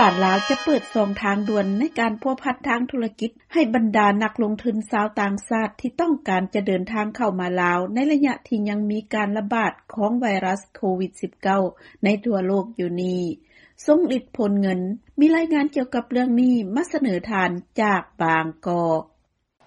ການລາວຈະເປີດຊ່ອງທາງດ່ວນໃນການພົວພັນທາງທຸລະກິດ ໃຫ້ບັນດານັກລົງທຶນຊາວຕ່າງຊາດທີ່ຕ້ອງການຈະເດີນທາງເຂົ້າມາລາວ ໃນໄລຍະທີ່ຍັງມີການລະບາດຂອງໄວຣັສໂຄວິດ-19 ໃນທົ່ວໂລກຢູ່ນີ້. ຊົງລິດ ໂພນເງິນ ມີລາຍງານກ່ຽວກັບເລື່ອງນີ້ມາສະເໜີທ່ານຈາກບາງກອກ.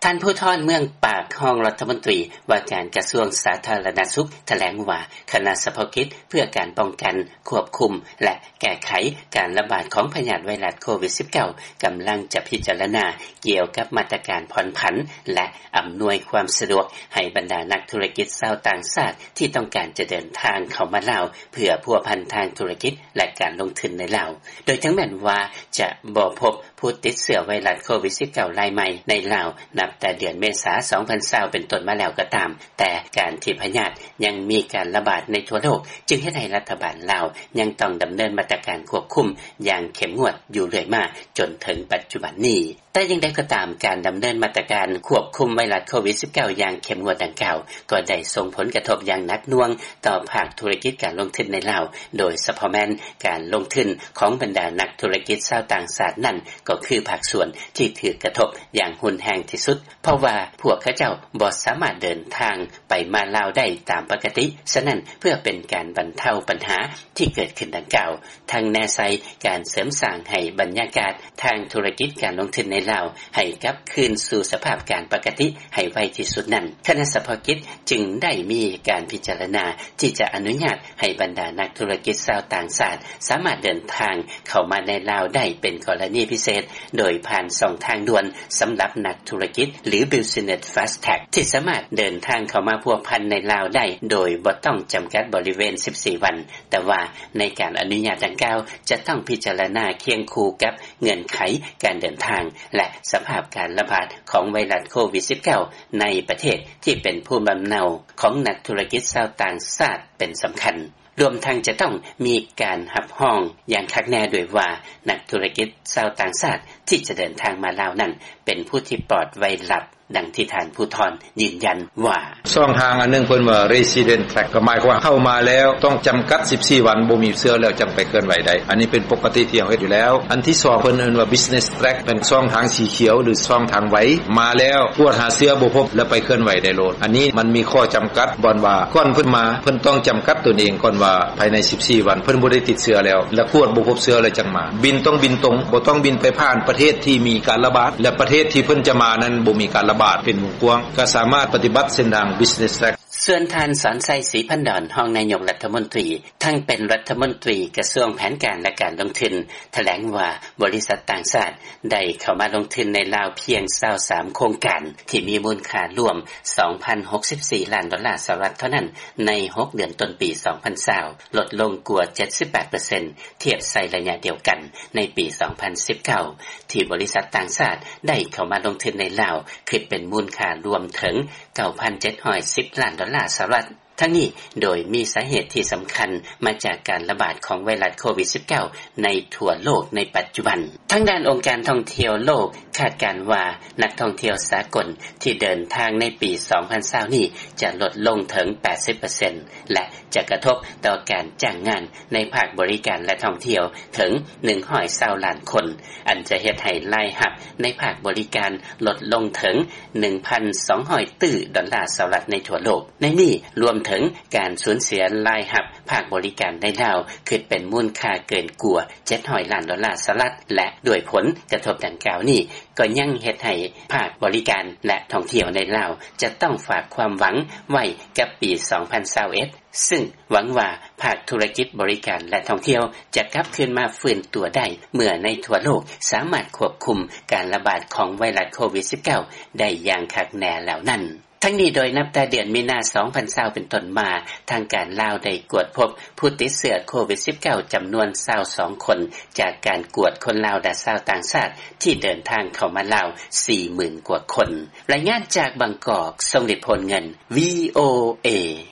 ທ່ານ ພູທອນ ເມືອງປາກ ຮອງລັດຖະມົນຕີວ່າການກະຊວງສາທາລະນະສຸກ ຖະແຫຼງວ່າ ຄະນະສະເພາະກິດເພື່ອການປ້ອງກັນ, ຄວບຄຸມ ແລະ ແກ້ໄຂການລະບາດຂອງພະຍາດໄວຣັສໂຄວິດ-19 ກຳລັງຈະພິຈາລະນາກ່ຽວກັບມາດຕະການຜ່ອນຜັນ ແລະ ອຳນວຍຄວາມສະດວກໃຫ້ບັນດານັກທຸລະກິດຊາວຕ່າງຊາດທີ່ຕ້ອງການຈະເດີນທາງເຂົ້າມາລາວ ເພື່ອພົວພັນທາງທຸລະກິດ ແລະ ການລົງທຶນໃນລາວ, ໂດຍເຖິງແມ່ນວ່າຈະບໍ່ພົບ ຜູ້ຕິດເຊື້ອໄວຣັສໂຄວິດ-19 ລາຍໃໝ່ໃນລາວ ນັບແຕ່ເດືອນເມສາ ສອງພັນຊາວ ເປັນຕົ້ນມາແລ້ວກໍຕາມ, ແຕ່ການທີ່ພະຍາດຍັງມີການລະບາດໃນທົ່ວໂລກ ຈຶ່ງເຮັດໃຫ້ລັດຖະບານລາວຍັງຕ້ອງດຳເນີນມາດຕະການຄວບຄຸມຢ່າງເຂັ້ມງວດຢູ່ເລື້ອຍມາຈົນເຖິງປັດຈຸບັນນີ້. ແຕ່ຢ່າງໃດກໍຕາມ, ການດຳເນີນມາດຕະການຄວບຄຸມໄວຣັສໂຄວິດ-19 ຢ່າງເຂັ້ມງວດດັ່ງກ່າວ ກໍໄດ້ສົ່ງຜົນກະທົບຢ່າງໜັກໜ່ວງຕໍ່ພາກທຸລະກິດການລົງທຶນໃນລາວ, ໂດຍສະເພາະແມ່ນການລົງທຶນຂອງບັນດານັກທຸລະກິດຊາວຕ່າງຊາດນັ້ນ ກໍຄືພາກສ່ວນທີ່ຖືກກະທົບຢ່າງຮຸນແຮງທີ່ສຸດ, ເພາະວ່າພວກເຂົາເຈົ້າບໍ່ສາມາດເດີນທາງໄປມາລາວໄດ້ຕາມປົກກະຕິ. ສະນັ້ນ, ເພື່ອເປັນການບັນເທົາບັນຫາທີ່ເກີດຂຶ້ນດັ່ງກ່າວ, ທັງແນໃສ່ການເສີມສ້າງໃຫ້ບັນຍາກາດທາງທຸລະກິດການລົງທຶນໃນລາວໃຫ້ກັບຄືນສູ່ສະພາບການປົກກະຕິໃຫ້ໄວທີ່ສຸດນັ້ນ, ຄະນະສະເພາະກິດຈຶ່ງໄດ້ມີການພິຈາລະນາທີ່ຈະອະນຸຍາດໃຫ້ບັນດານັກທຸລະກິດຊາວຕ່າງຊາດສາມາດເດີນທາງເຂົ້າມາໃນລາວໄດ້ເປັນກໍລະນີພິເສດ, ໂດຍຜ່ານຊ່ອງທາງດ່ວນສຳລັບນັກທຸລະກິດ ຫຼື Business Fast Track ທີ່ສາມາດເດີນທາງເຂົ້າມາພົວພັນໃນລາວໄດ້ໂດຍບໍ່ຕ້ອງຈຳກັດບໍລິເວນສິບສີ່ວັນ. ແຕ່ວ່າໃນການອະນຸຍາດດັ່ງກ່າວ ຈະຕ້ອງພິຈາລະນາຄຽງຄູ່ກັບເງື່ອນໄຂການເດີນທາງ ແລະ ສະພາບການລະບາດຂອງໄວຣັສໂຄວິດ-19 ໃນປະເທດທີ່ເປັນພູມລຳເນົາຂອງນັກທຸລະກິດຊາວຕ່າງຊາດເປັນສຳຄັນ, ລວມທັງຈະຕ້ອງມີການຮັບຮອງຢ່າງຄັກແນ່ດ້ວຍວ່າ ນັກທຸລະກິດຊາວຕ່າງຊາດທີ່ຈະເດີນທາງມາລາວນັ້ນ ເປັນຜູ້ທີ່ປອດໄວຣັສ ດັ່ງທີ່ທ່ານ ພູທອນ ຢືນຢັນວ່າ: ຊ່ອງທາງອັນໜຶ່ງເພິ່ນວ່າ Resident Track ກໍໝາຍຄວາມວ່າເຂົ້າມາແລ້ວຕ້ອງຈຳກັດສິບສີ່ວັນ, ບໍ່ມີເຊື້ອແລ້ວຈັ່ງໄປເຄື່ອນໄຫວໄດ້. ອັນນີ້ເປັນປົກກະຕິທີ່ເຮົາເຮັດຢູ່ແລ້ວ. ອັນທີສອງ ເພິ່ນເອີ້ນວ່າ Business Track ເປັນຊ່ອງທາງສີຂຽວ ຫຼື ຊ່ອງທາງໄວ, ມາແລ້ວກວດຫາເຊື້ອບໍ່ພົບ ແລ້ວໄປເຄື່ອນໄຫວໄດ້ໂລດ. ອັນນີ້ມັນມີຂໍ້ຈຳກັດບ່ອນວ່າ ກ່ອນເພິ່ນມາ ເພິ່ນຕ້ອງຈຳກັດຕົນເອງກ່ອນວ່າ ພາຍໃນສິບສີ່ວັນເພິ່ນບໍ່ໄດ້ຕິດເຊື້ອແລ້ວ ແລະ ກວດບໍ່ພົບເຊື້ອແລ້ວຈັ່ງມາ. ບິນຕ້ອງບິນຕົງ, ບໍ່ຕ້ອງບິນໄປຜ່ານປະເທດທີ່ມີການລະບາດ ແລະ ປະເທດທີ່ເພິ່ນຈະມານັ້ນບໍ່ມີການລະບາດເປັນວົງກວ້າງ, ກໍສາມາດປະຕິບັດເສັ້ນທາງ Business Track. ສ່ວນທ່ານ ສອນໄຊ ສີພັນດອນ ຮອງນາຍົກລັດຖະມົນຕີ ທັງເປັນລັດຖະມົນຕີກະຊວງແຜນການ ແລະ ການລົງທຶນ ຖະແຫຼງວ່າ ບໍລິສັດຕ່າງຊາດໄດ້ເຂົ້າມາລົງທຶນໃນລາວພຽງຊາວສາມໂຄງການ ທີ່ມີມູນຄ່າລວມສອງພັນຫົກສິບສີ່ລ້ານດອນລາສະຫະລັດເທົ່ານັ້ນ ໃນຫົກເດືອນຕົ້ນປີສອງພັນຊາວ ລົດລົງກວ່າເຈັດສິບແປດເປີເຊັນ ທຽບໃສ່ໄລຍະດຽວກັນໃນປີສອງພັນສິບເກົ້າ ທີ່ບໍລິສັດຕ່າງຊາດໄດ້ເຂົ້າມາລົງທຶນໃນລາວ ຄິດເປັນມູນຄ່າລວມເຖິງເກົ້າພັນເຈັດຮ້ອຍສິບລ້ານດອນລາສະຫະລັດ. ທັງນີ້ໂດຍມີສາເຫດທີ່ສຳຄັນມາຈາກການລະບາດຂອງໄວຣັສໂຄວິດ-19 ໃນທົ່ວໂລກໃນປັດຈຸບັນ. ທາງດ້ານອົງການທ່ອງທ່ຽວໂລກຄາດການວ່າ ນັກທ່ອງທ່ຽວສາກົນທີ່ເດີນທາງໃນປີສອງພັນຊາວນີ້ຈະລົດລົງເຖິງແປດສິບເປີເຊັນ ແລະ ຈະກະທົບຕໍ່ການຈ້າງງານໃນພາກບໍລິການ ແລະ ທ່ອງທ່ຽວເຖິງໜຶ່ງຮ້ອຍຊາວລ້ານຄົນ, ອັນຈະເຮັດໃຫ້ລາຍຮັບໃນພາກບໍລິການລົດລົງເຖິງໜຶ່ງພັນສອງຮ້ອຍຕື້ດອນລາສະຫະລັດໃນທົ່ວໂລກ. ໃນນີ້ລວມເຖິງການສູນເສຍລາຍຮັບພາກບໍລິການໃນລາວ ຄິດເປັນມູນຄ່າເກີນກວ່າເຈັດຮ້ອຍລ້ານດອນລາສະຫະລັດ ແລະ ດ້ວຍຜົນກະທົບດັ່ງກ່າວນີ້ ກໍຍັງເຮັດໃຫ້ພາກບໍລິການ ແລະ ທ່ອງທ່ຽວໃນລາວ ຈະຕ້ອງຝາກຄວາມຫວັງໄວ້ກັບປີສອງພັນຊາວເອັດ ຊຶ່ງຫວັງວ່າພາກທຸລະກິດບໍລິການ ແລະ ທ່ອງທ່ຽວ ຈະກັບຄືນມາຟື້ນຕົວໄດ້ ເມື່ອໃນທົ່ວໂລກສາມາດຄວບຄຸມການລະບາດຂອງໄວຣັສໂຄວິດ-19 ໄດ້ຢ່າງຄັກແນ່ແລ້ວນັ້ນ. ທັງນີ້ໂດຍນັບແຕ່ເດືອນມີນາ ສອງພັນຊາວ ເປັນຕົ້ນມາ, ທາງການລາວໄດ້ກວດພົບຜູ້ຕິດເຊື້ອໂຄວິດ-19 ຈຳນວນຊາວສອງຄົນ ຈາກການກວດຄົນລາວ ແລະ ຊາວຕ່າງຊາດທີ່ເດີນທາງເຂົ້າມາລາວ ສີ່ໝື່ນກວ່າຄົນ. ລາຍງານຈາກບາງກອກ, ຊົງລິດ ໂພນເງິນ, ວີໂອເອ.